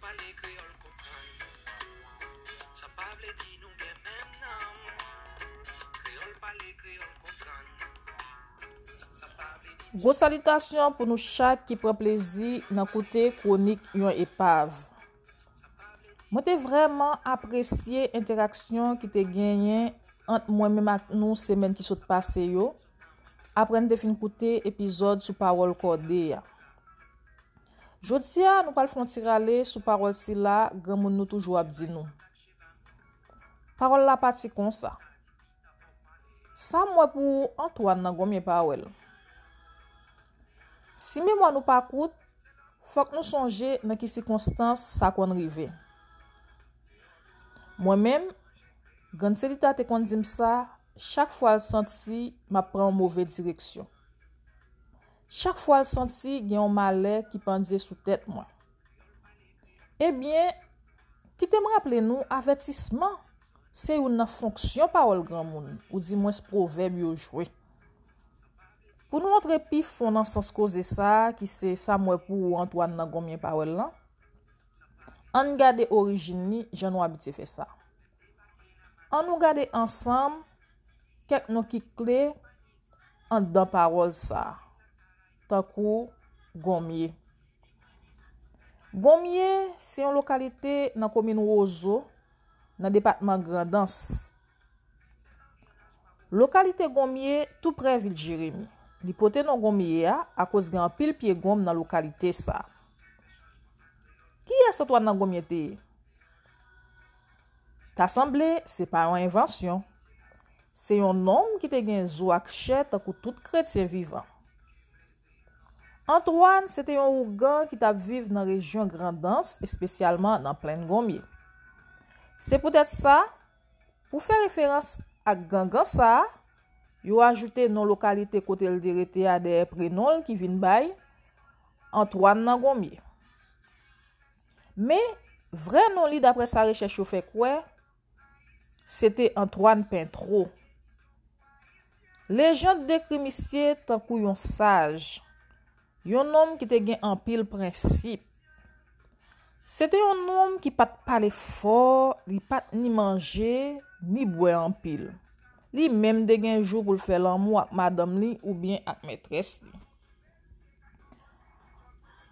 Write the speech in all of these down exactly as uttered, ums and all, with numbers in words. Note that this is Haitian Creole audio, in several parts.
Pale kreyòl konprann. Sa pa vle di nou gen menm nanm. Kreyòl pale, kreyòl konprann. Sa pa vle di Gwo salitasyon pou nou chak ki pran plezi nan koute kwonik yon epav. Mwen te vrèman apresye entèraksyon ki te genyen ant mwen menm ak nou semèn ki sot pase yo, apre n te fin koute epizòd sou pawòl kòde a. Jodi a, nou pral fè yon ti rale sou pawòl sila granmoun nou toujou ap di nou. Pawòl la pati konsa. Sa m wè pou ou, Antoine nan Gonmye pa wè l. Si memwa nou pa kout, fòk nou sonje nan ki sikonstans sa konn rive. Mwen menm, Grann Selita te konn di m sa chak fwa l santi m ap pran yon move direksyon. Chak fwa l santi gen yon malè ki pandye sou tèt mwen. Ebyen, kite m raple nou avètisman se youn nan fonksyon pawòl granmoun, oudimwens pwovèb yo jwe. Pou nou antre pi fon nan sans koze sa a, ki se sa m wè pou ou Antoine nan Gonmye pa wè l lan, ann gade orijin li jan nou abitye fè sa. Ann nou gade ansanm kèk non ki kle anndan pawòl sa a, tankou Gonmye. Gonmye se yon lokalite nan komin Wozo, nan depatman Grandans. Lokalite Gonmye tou prè vil Jeremi. Li pote non Gonmye a akoz gen anpil pye gonm nan lokalite sa a. Kiyès Antwàn nan Gonmye te ye? Ta sanble se pa yon envansyon. Se yon nonm ki te gen zo ak chè tankou tout kretyen vivan. Antwàn se te yon ougan ki t ap viv nan rejyon Grandans, espesyalman nan Plenn Gonmye. Se poutèt sa, pou fè referans ak gangan sa a, yo ajoute non lokalite kote l te rete a dèyè prenon l ki vin bay Antwàn nan Gonmye. Men, vrè non li, daprè sa rechèch yo fè kwè, se te Antwàn Pentwo. Lejand dekri misye tankou yon saj, yon nonm ki te gen anpil prensip. Se te yon nonm ki pa t pale fò, li pa t ni manje, ni bwè anpil. Li menm te gen jou pou l fè lanmou ak madanm li oubyen ak mètrès li.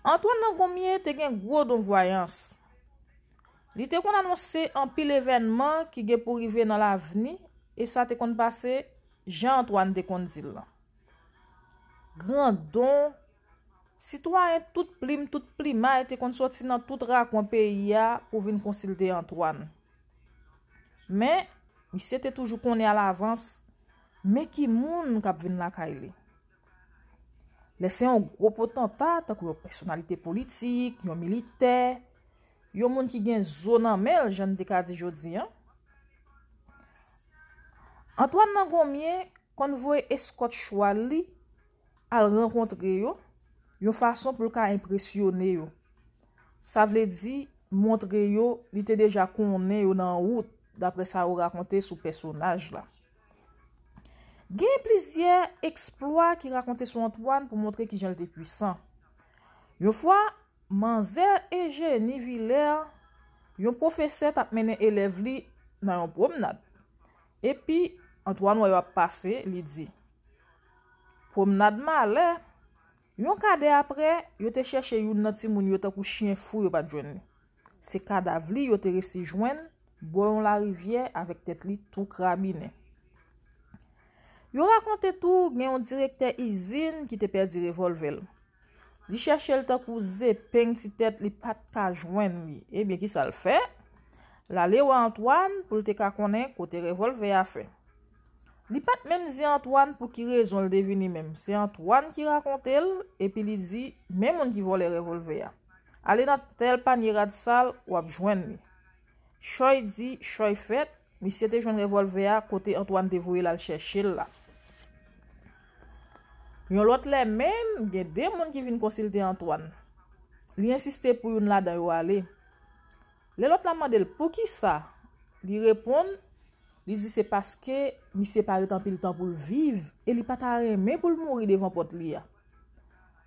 Antwàn nan Gonmye te gen gwo don vwayans. Li te konn anonse anpil evènman ki gen pou rive nan lavni, e sa te konn pase jan Antwàn te konn di l lan. Grandon, sitwayen tout plim, tout plimay te konn soti nan tout rakwen peyi a pou vin konsilte Antwàn. Men, misye te toujou konnen alavans men ki moun k ap vin lakay li. Lè se yon gwo potanta, tankou yon pèsonalite politik, yon militè, yon moun ki gen zo nan men l, jan n te ka di jodi a, Antwàn nan Gonmye konn voye eskòt chwal li al rankontre yo, yon fason pou l ka enpresyone yo. Sa vle di, montre yo li te deja konnen yo nan wout, daprè sa yo rakonte sou pèsonaj la. Gen plizyè eksplwa ki rakonte sou Antwàn pou montre kijan l te pwisan. Yon fwa, manzè Ejeni Vilè, yon pwofesè, t ap mennen elèv li nan yon pwomnad. Epi, Antwàn wè yo ap pase, li di, "Pwomnad malè." Yon kadè apre, yo te chèche youn nan timoun yo tankou chen fou, yo pa t jwenn li. Se kadav li yo te resi jwenn bò yon larivyè avèk tèt li tou krabinen. Yo rakonte tou gen yon direktè izin ki te pèdi revòlvè l. Li chèche l tankou zepeng ti tèt, li pa t ka jwenn li. Ebyen, kisa l fè? L ale wè Antwàn pou l te ka konnen kote revòlvè a fè. Li pa t menm di Antwàn pou ki rezon l te vini menm. Se Antwàn ki rakonte l, epi li di, "Men moun ki vòlè revòlvè a. Ale nan tèl panye rad sal, w ap jwenn li." Chòy di, chòy fèt, misye te jwenn revòlvè a kote Antwàn te voye l al chèche l la. Yon lòt lè menm, gen de moun ki vin konsilte Antwàn. Li ensiste pou youn ladan yo ale. Lè lòt la mande l poukisa, li reponn, li di se paske misye pa ret anpil tan pou l viv e li pa ta renmen pou l mouri devan pòt li a.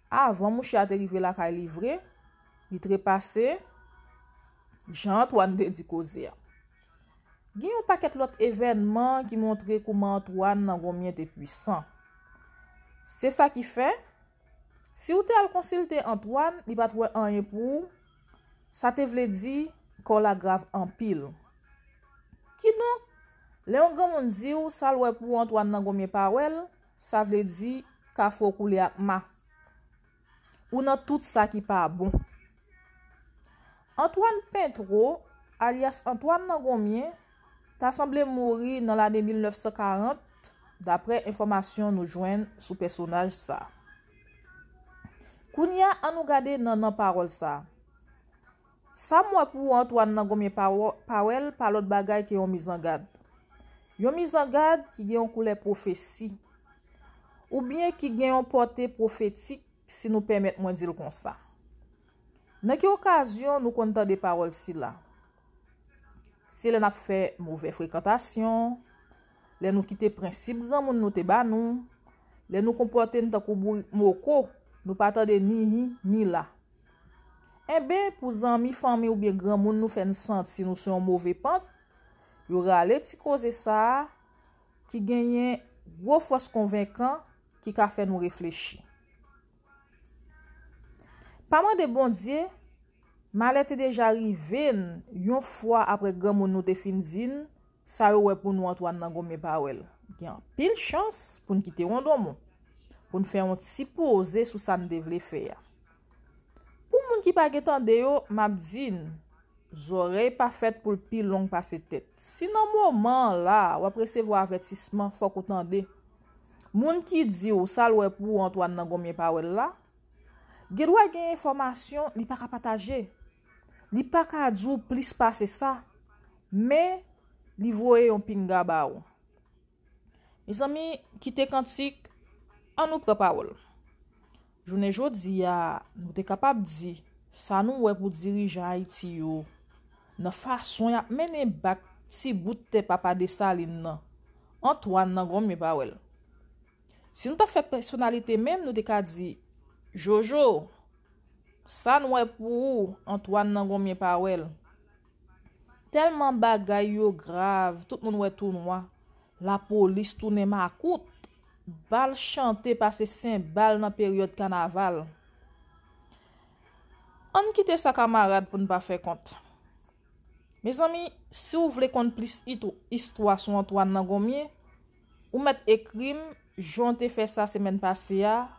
Avan mouche a te rive lakay li vre, li trepase, jan Antwàn te di koze a. Gen yon pakèt lòt evènman ki montre kouman Antwàn nan Gonmyen te pwisan. Se sa ki fè, si w te al konsilte Antwàn, li pa t wè anyen pou ou, sa te vle di kè w la grav anpil. Kidonk, lè yon granmoun di w sa l wè pou ou Antwàn nan Gonmyen pa wè l, sa vle di kafou koule ak ma. Ou nan tout sa ki pa bon. Antwàn Pentwo, alyas Antwàn nan Gonmyen, ta sanble mouri nan lane mil nèf san karant, daprè enfòmasyon nou jwenn sou pèsonaj sa. Kounye a, ann nou gade nan nan pawòl sa. Sa m wè pou Antwàn nan Gonmyen pa wè l pa lòt bagay ke yon mizangad. Yon mizangad ki gen yon koulè pwofesi, oubyen ki gen yon pòte pwofetik, si nou pèmèt mwen di l konsa. Nan ki okazyon nou konn tande pawòl sila? Se lè n ap fè movè frekantasyon, lè nou kite prensip granmoun nou te ba nou, lè nou konpòte n tankou bourik moko, nou pa tande ni hi ni la. Enben, pou zanmi, fanmi oubyen granmoun nou fè n santi nou sou yon move pant, yo rale ti koze sa a ki genyen gwo fòs konvenkan ki ka fè nou reflechi. Pa mande Bondye, malè te deja rive n yon fwa apre granmoun nou te fin di n sa yo wè pou nou Antwàn nan Gonmyen pa wè l. Gen anpil chans pou n kite wondonmon, pou n fè yon ti poze sou sa n te vle fè a. Pou moun ki pa gen tande yo, m ap di n, zòrèy pa fèt pou l pi long pase tèt. Si nan moman an la, w ap resevwa avètisman, fòk ou tande. Moun ki di w sa l wè pou ou Antwàn nan Gonmyen pa wè l la, gen dwa gen enfòmasyon li pa ka pataje. Li pa ka di w plis pase sa, men li voye yon pinga ba ou. Mezanmi, kite kantik, ann nou pran pawòl. Jounen jodi a, nou te kapab di sa nou wè pou dirijan Ayiti yo nan fason y ap mennen bak ti bout tè Papa Desalin nan, Antwàn nan Gonmyen pa wè l. Si nou ta fè pèsonalite menm, nou te ka di, Jojo, sa n wè pou ou, Antwàn nan Gonmyen pa wè l. Tèlman bagay yo grav, tout moun wè tou nwa. Lapolis tounen makout. Bal chante pase senbal nan peryòd kanaval. Ann kite sa kamarad pou n pa fè kont. Mezanmi, si w vle konn plis itw- istwa sou Antwàn nan Gonmyen, ou mèt ekri m, jan w te fè sa semèn pase a,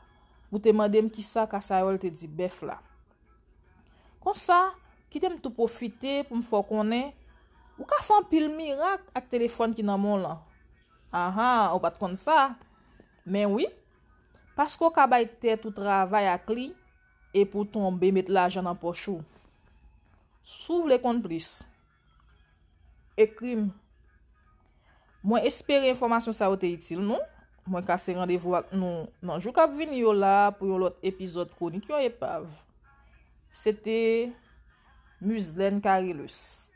pou w te mande m kisa Kasayòl te di bèf la. Konsa, kite m tou pwofite pou m fè w konnen, ou ka fè anpil mirak ak telefòn ki nan men w lan. Ahan, ou pa t konn sa. Men wi, paske w ka bay tèt ou travay ak li, epi w tonbe met lajan nan pòch ou. Si w vle konn plis, ekri m. Mwen espere enfòmasyon sa yo te itil nou. Mwen kase randevou ak nou nan jou k ap vini yo la pou yon lòt epizòd Kwonik yon Epav. Se te Muzlène Carillus.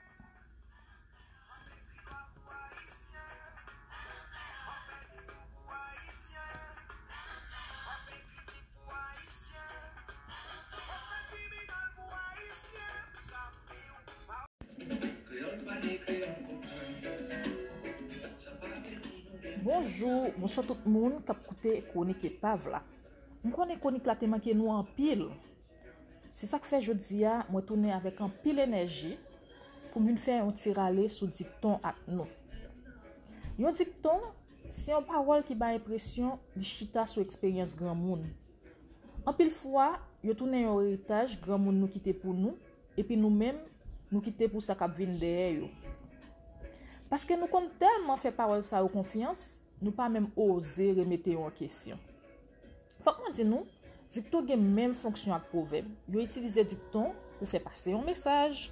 Bonjou, bonswa tout moun k ap koute Kwonik Epav la. M konnen kwonik la te manke nou anpil. Se sa k fè jodi a, mwen tounen avèk anpil enèji pou m vin fè yon ti rale sou dikton ak nou. Yon dikton, se yon pawòl ki bay enpresyon li chita sou eksperyans granmoun. Anpil fwa, yo tounen yon eritaj granmoun nou kite pou nou, epi nou menm, nou kite pou sa k ap vin dèyè yo. Paske nou konn tèlman fè pawòl sa yo konfyans, nou pa menm oze remete yo an kesyon. Fòk mwen di nou, dikton gen menm fonksyon ak pwovèb. Yo itilize dikton pou fè pase yon mesaj.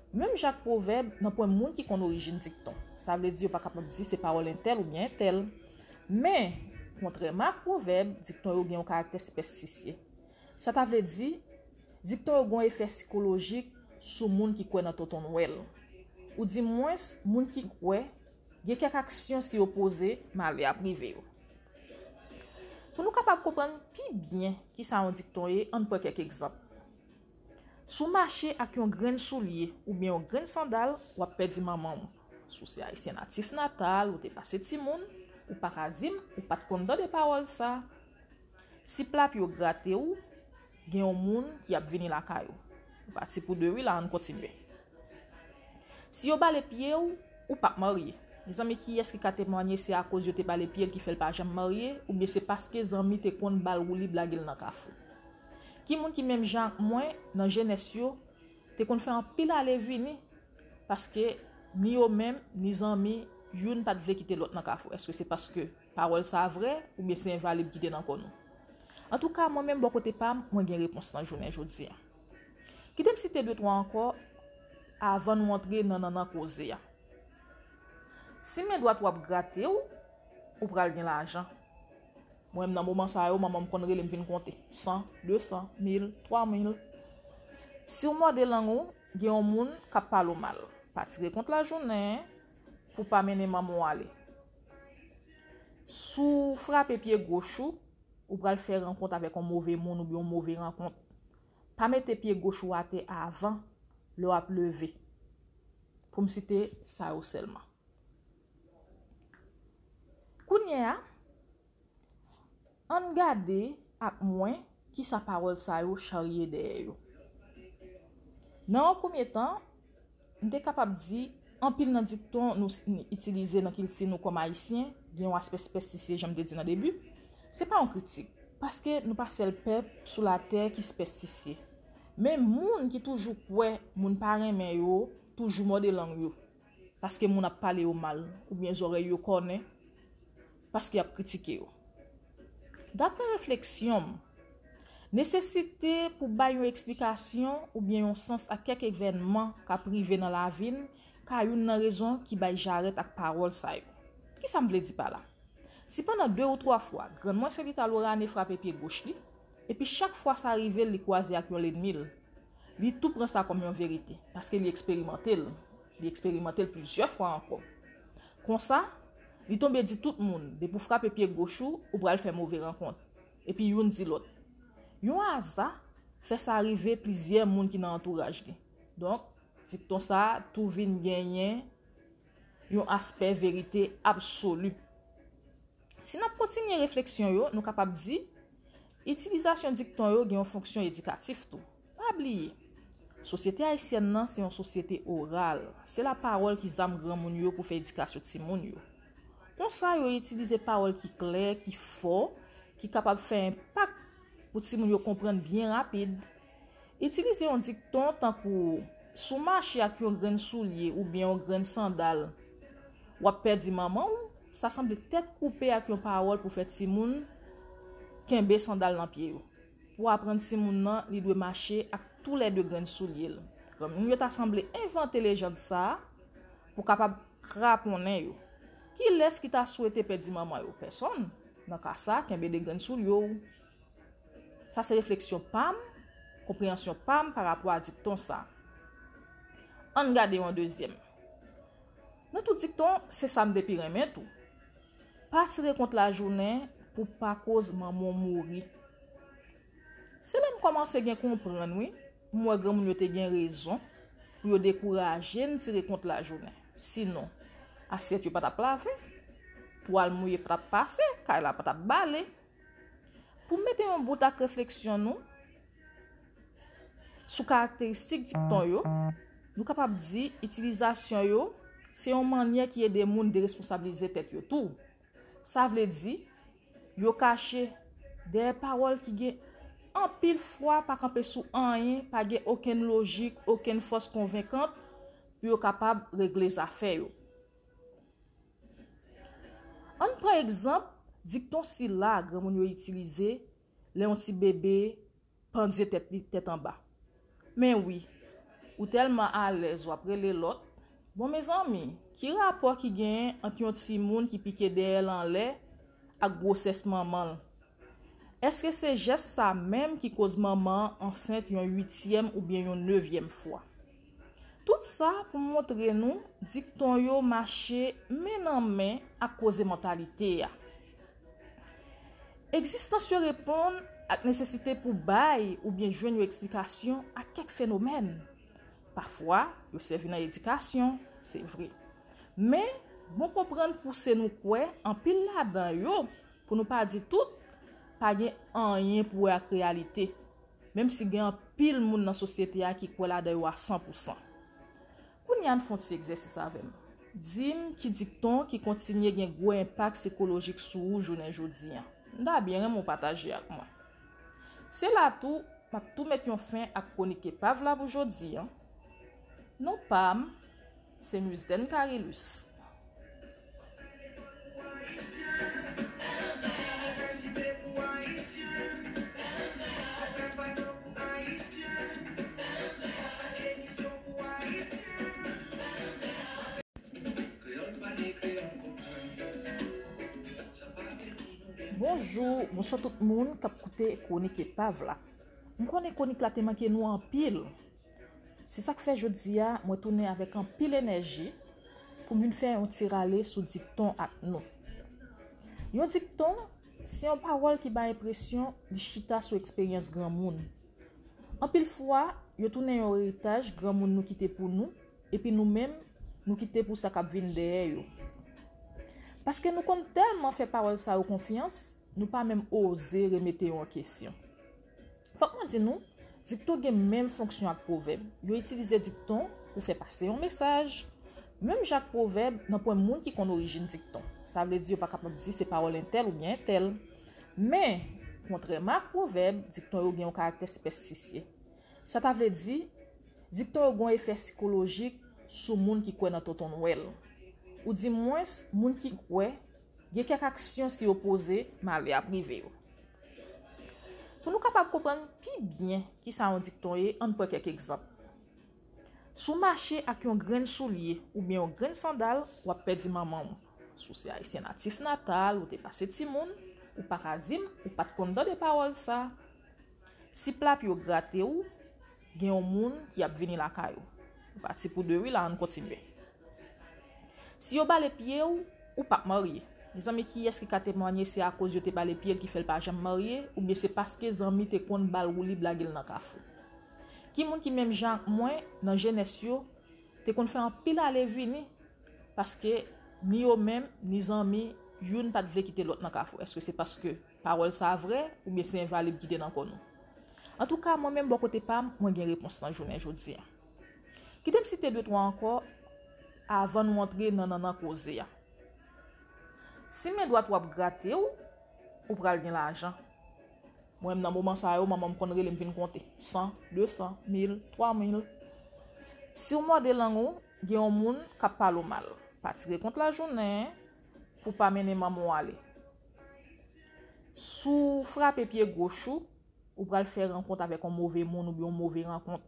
Menm jan ak pwovèb, nan pwen moun ki konn orijin dikton. Sa vle di yo pa kapab di se pawòl entèl oubyen entèl. Men, kontrèman ak pwovèb, dikton yo gen yon karaktè sipèstisye. Sa ta vle di, dikton yo gen yon efè sikolojik sou moun ki kwè nan Tonton Nwèl. Ou di mwens, moun ki kwè, gen kèk aksyon si yo poze, malè ap rive yo. Pou nou kapab konprann pi byen kisa yon dikton ye, ann pran kèk egzanp. Si w mache ak yon grenn soulye oubyen yon grenn sandal, w ap pèdi manman w. Si w se ayisyen natif natal, ou te pase timoun, ou pa ka di m ou pa t konn tande pawòl sa. Si plapye w grate w, gen yon moun ki ap vini lakay ou. Ou pati pou de wi la, ann kontinye. Si yo bale pye w, ou p ap marye. Mezanmi, kiyès ki ka temwanye se akoz yo te bale pye l ki fè l pa janm marye, oubyen se paske zanmi te konn ba l woulib lage l nan kafou? Ki moun ki menm jan ak mwen, nan jenès yo, te konn fè anpil ale vini, paske ni yo menm, ni zanmi, youn pa t vle kite lòt nan kafou? Èske se paske pawòl sa vrè, oubyen se envalib ki te nan kò nou? Antouka, mwen menm bò kote pa m, mwen gen repons lan jounen jodi a. Kite m site de twa ankò avan nou antre nan nannan koze a. Si men dwat w ap grate w, ou pral gen lajan. Mwen menm nan moman sa yo, manman m konn rele m vin konte. San, de san, mil, twa mil. Si w mòde lang ou, gen yon moun k ap pale w mal. Pa tire kont lajounen pou pa mennen manman w ale. Si w frape pye goch ou, ou pral fè rankont avèk yon move moun oubyen yon move rankont. Pa mete pye goch ou atè avan lè w ap leve. Pou m site sa yo sèlman. Kounye a, ann gade ak mwen kisa pawòl sa yo charye dèyè yo. Nan yon premye tan, m te kapab di anpil nan dikton nou s- n- itilize nan kilti nou kòm Ayisyen gen yon aspè sipèstisye, jan m te di nan debi. Se pa yon kritik, paske nou pa sèl pèp sou latè ki sipèstisye. Men moun ki toujou kwè moun pa renmen yo, toujou mòde lang yo, paske moun ap pale yo mal, oubyen zòrèy yo kònen, paske y ap kritike yo. Daprè refleksyon m, nesesite pou bay yon eksplikasyon oubyen yon sans ak kèk evènman k ap rive nan lavi n ka youn nan rezon ki bay jarèt ak pawòl sa yo. Kisa m vle di pa la? Si pandan de ou twa fwa, grann mwen Sèlita Lorane frape pye goch li, epi chak fwa sa rive l, li kwaze ak yon lènmi l, li tou pran sa kòm yon verite, paske li eksperimante l. Li eksperimante l plizyè fwa ankò. Konsa, li tonbe di tout moun, depi w frape pye goch ou, ou pral fè move rankont. Epi youn di lòt. Yon aza fè sa rive plizyè moun ki nan antouraj li. Donk, dikton sa a tou vin genyen yon aspè verite absoli. Si n ap kontinye refleksyon yo, nou kapab di, itilizasyon dikton yo gen yon fonksyon edikatif tou. Pa bliye, sosyete ayisyèn nan se yon sosyete oral. Se lapawòl ki zam granmoun yo pou fè edikasyon timoun yo. Konsa, yo itilize pawòl ki klè, ki fò, ki kapab fè enpak pou timoun yo konprann byen rapid. Itilize yon dikton tankou, si w mache ak yon grenn soulye oubyen yon grenn sandal, w ap pèdi manman w, sa sanble tèt koupe ak yon pawòl pou fè timoun kenbe sandal nan pye yo. Pou aprann timoun nan, li dwe mache ak toulède grenn soulye l. Granmoun yo ta sanble envante lejand sa a pou kapab kraponnen yo. Kilès ki ta swete pèdi manman yo? Pèsonn. Nan ka sa, kenbe de grenn soulye w. Sa se refleksyon pa m, konpreyansyon pa m pa rapò a dikton sa. Ann gade yon dezyèm. Nan tout dikton, se sa m te pi renmen tou. Pa tire kont lajounen pou pa koz manman w mouri. Se la m kòmanse gen konprann, wi. M wè granmoun yo te gen rezon pou yo dekouraje n tire kont lajounen. Sinon, asyèt yo pa t ap lave, twal mouye pa t ap pase, kay la pa t ap bale. Pou mete yon bout ak refleksyon nou sou karakteristik dikton yo, nou kapab di itilizasyon yo se yon mannyè ki ede moun deresponsablize tèt yo tou. Sa vle di, yo kache dèyè pawòl ki gen anpil fwa pa kanpe sou anyen, pa gen okenn lojik, okenn fòs konvenkant pou yo kapab regle zafè yo. Ann pran egzanp dikton sila granmoun yo itilize lè yon ti bebe pandye tèt li tèt anba. Men wi, ou tèlman alèz w ap rele lòt. Bon, mezanmi, ki rapò ki genyen ant yon timoun ki pike dèyè l anlè ak gwosès manman l? Èske se jès sa menm ki koz manman an ansent yon uityèm oubyen yon nevyèm fwa? Tout sa pou montre nou dikton yo mache men nan men ak koze mantalite a. Egzistans yo reponn ak nesesite pou bay oubyen jwenn yon eksplikasyon a kèk fenomèn. Pafwa, yo sèvi nan edikasyon, se vre. Men, bon konprann pouse nou kwè anpil ladan yo, pou nou pa di tout, pa gen anyen pou wè ak reyalite, menm si gen anpil moun nan sosyete a ki kwè ladan yo a san pou san. Kounye a, ann fè yon ti egzèsis avè m. Di m ki dikton ki kontinye gen gwo enpak sikolojik sou ou jounen jodi a. M ta byen renmen w pataje ak mwen. Se la tou, m ap tou met yon fen ak kwonik epav la pou jodi a. Non pa m, se Muzden Carilus. Bonjou, bonswa tout moun k ap koute Kwonik Epav la. M konnen kwonik la te manke nou anpil. Se sa k fè jodi a, mwen tounen avèk anpil enèji pou m vin fè yon ti rale sou dikton ak nou. Yon dikton, se yon pawòl ki bay enpresyon li chita sou eksperyans granmoun. Anpil fwa, yo tounen yon eritaj granmoun nou kite pou nou, epi nou menm, nou kite pou sa k ap vin dèyè yo. Paske nou konn tèlman fè pawòl sa yo konfyans, nou pa menm oze remete yo an kesyon. Fòk mwen di nou, dikton gen menm fonksyon ak pwovèb. Yo itilize dikton pou fè pase yon mesaj. Menm jan ak pwovèb, nanpwen moun ki konn orijin dikton. Sa vle di yo pa kapab di se pawòl entèl oubyen entèl. Men, kontrèman ak pwovèb, dikton yo gen yon karaktè sipèstisye. Sa ta vle di, dikton yo gen yon efè sikolojik sou moun ki kwè nan Tonton Nwèl. Oudimwens, moun ki kwè gen kèk aksyon si yo poze, malè ap rive yo. Pou nou kapab konprann pi byen kisa yon dikton ye, ann pran kèk egzanp. Si w mache ak yon grenn soulye oubyen yon grenn sandal, w ap pèdi manman w. Si w se ayisyen natif natal, ou te pase timoun, ou pa ka di m ou pa t konn tande pawòl sa. Si pla pye w grate w, gen yon moun ki ap vini lakay ou. Ou pati pou de wi la, ann kontinye. Si yo bale pye w, ou p ap marye. Mezanmi, kiyès ki ka temwanye se akoz yo te bale pye l ki fè l pa janm marye, oubyen se paske zanmi te konn ba l woulib lage l nan kafou? Ki moun ki menm jan ak mwen, nan jenès yo, te konn fè anpil ale vini, paske ni yo menm, ni zanmi, youn pa t vle kite lòt nan kafou? Èske se paske pawòl sa a vrè, oubyen se envalib ki te nan kò nou? Antouka, mwen menm bò kote pa m, mwen gen repons lan jounen jodi a. Kite m site de twa ankò avan nou antre nan nannan koze a. Si men dwat ou ap grate w, ou pral gen lajan. Mwen menm nan moman sa yo, manman m konn rele m vin konte. San, de san, mil, twa mil. Si w mòde lang ou, gen yon moun k ap pale w mal. Pa tire kont lajounen pou pa mennen manman w ale. Si w frape pye goch ou, ou pral fè rankont avèk yon move moun oubyen yon move rankont.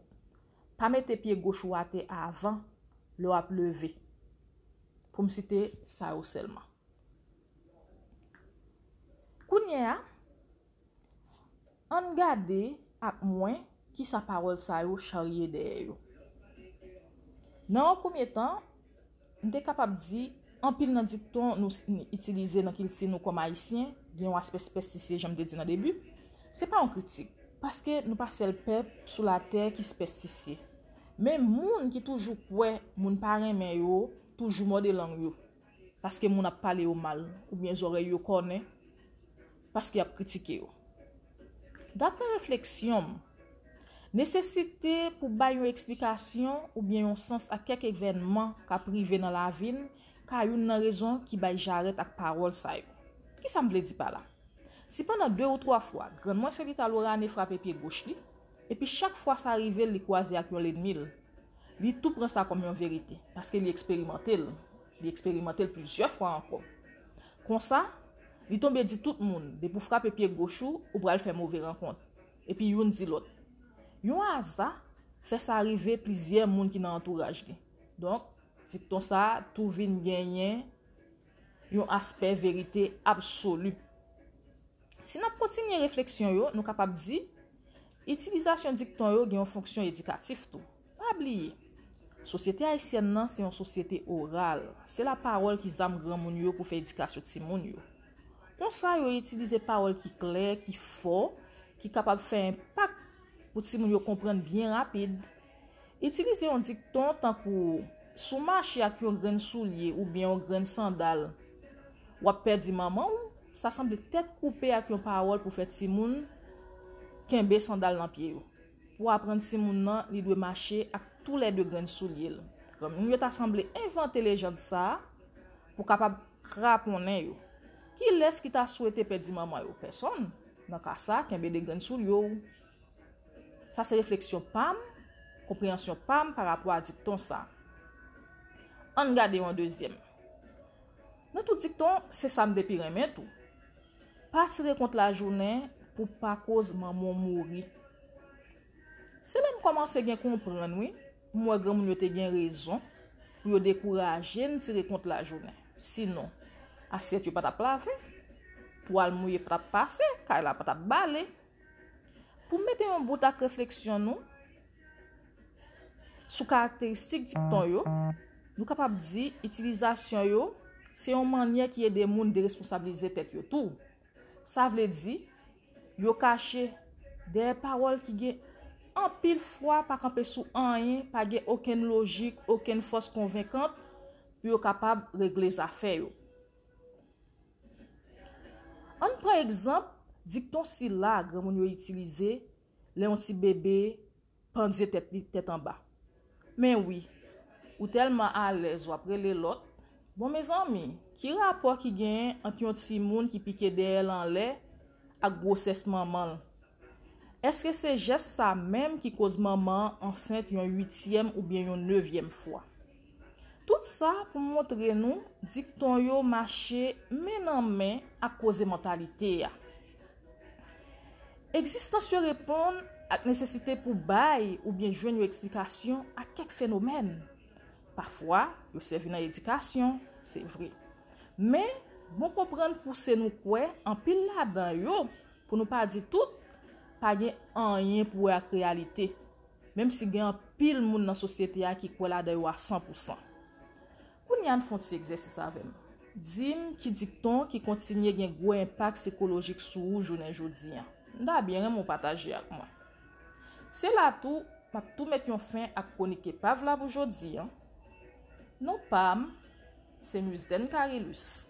Pa mete pye goch ou atè avan lè w ap leve. Pou m site sa yo sèlman. Kounye a, ann gade ak mwen kisa pawòl sa yo charye dèyè yo. Nan yon premye tan, m te kapab di, anpil nan dikton nou s-, n-, itilize nan kilti nou kòm Ayisyen, gen yon aspè sipèstisye, jan m te di nan debi. Se pa yon kritik, paske nou pa sèl pèp sou latè ki sipèstisye. Men moun ki toujou kwè moun pa renmen yo, toujou mòde lang yo, paske moun ap pale yo mal, oubyen zòrèy yo kònen, paske y ap kritike yo. Daprè refleksyon m, nesesite pou bay yon eksplikasyon oubyen yon sans a kèk evènman k ap rive nan lavi n ka youn nan rezon ki bay jarèt ak pawòl sa yo. Kisa m vle di pa la? Si pandan de ou twa fwa, grann mwen Selita Lorane frape pye goch li, epi chak fwa sa rive l, li kwaze ak yon lènmi l, li tou pran sa kòm yon verite, paske li eksperimante l. Li eksperimante l plizyè fwa ankò. Konsa, li tonbe di tout moun, depi w frape pye goch ou, ou pral fè move rankont. Epi youn di lòt. Yon aza fè sa rive plizyè moun ki nan antouraj li. Donk, dikton sa a tou vin genyen yon aspè verite absoli. Si n ap kontinye refleksyon yo, nou kapab di, itilizasyon dikton yo gen yon fonksyon edikatif tou. Pa bliye, sosyete ayisyèn nan se yon sosyete oral. Se lapawòl ki zam granmoun yo pou fè edikasyon timoun yo. Konsa, yo itilize pawòl ki klè, ki fò, ki kapab fè enpak pou timoun yo konprann byen rapid. Itilize yon dikton tankou, si w mache ak yon grenn soulye oubyen yon grenn sandal, w ap pèdi manman w, sa sanble tèt koupe ak yon pawòl pou fè timoun kenbe sandal nan pye yo. Pou aprann timoun nan, li dwe mache ak toulède grenn soulye l. Granmoun yo ta sanble envante lejand sa a pou kapab kraponnen yo. Kilès ki ta swete pèdi manman yo? Pèsonn. Nan ka sa, kenbe de grenn soulye w. Sa se refleksyon pa m, konpreyansyon pa m pa rapò a dikton sa. Ann gade yon dezyèm. Nan tout dikton, se sa m te pi renmen tou. Pa tire kont lajounen pou pa koz manman w mouri. Se la m kòmanse gen konprann, wi. M wè granmoun yo te gen rezon pou yo dekouraje n tire kont lajounen. Sinon, asyèt yo pa t ap lave, twal mouye pa t ap pase, kay la pa t ap bale. Pou mete yon bout ak refleksyon nou sou karakteristik dikton yo, nou kapab di itilizasyon yo se yon mannyè ki ede moun deresponsabilize tèt yo tou. Sa vle di, yo kache dèyè pawòl ki gen anpil fwa pa kanpe sou anyen, pa gen okenn lojik, okenn fòs konvenkant pou yo kapab regle zafè yo. Ann pran egzanp dikton sila granmoun yo itilize lè yon ti bebe pandye tèt li tèt anba. Men wi, ou tèlman alèz w ap rele lòt. Bon, mezanmi, ki rapò ki genyen ant yon timoun ki pike dèyè l anlè ak gwosès manman l? Èske se jès sa menm ki koz manman an ansent yon uityèm oubyen yon nevyèm fwa? Tout sa pou montre nou dikton yo mache men nan men ak koze mantalite a. Egzistans yo reponn ak nesesite pou bay oubyen jwenn yon eksplikasyon a kèk fenomèn. Pafwa, yo sèvi nan edikasyon, se vre. Men, bon konprann pouse nou kwè anpil ladan yo, pou nou pa di tout, pa gen anyen pou wè ak reyalite, menm si gen anpil moun nan sosyete a ki kwè ladan yo a san pou san. Kounye a, ann fè yon ti egzèsis avè m. Di m ki dikton ki kontinye gen gwo enpak sikolojik sou ou jounen jodi a. M ta byen renmen w pataje ak mwen. Se la tou, m ap tou met yon fen ak kwonik epav la pou jodi a. Non pa m, se Musden Carilus.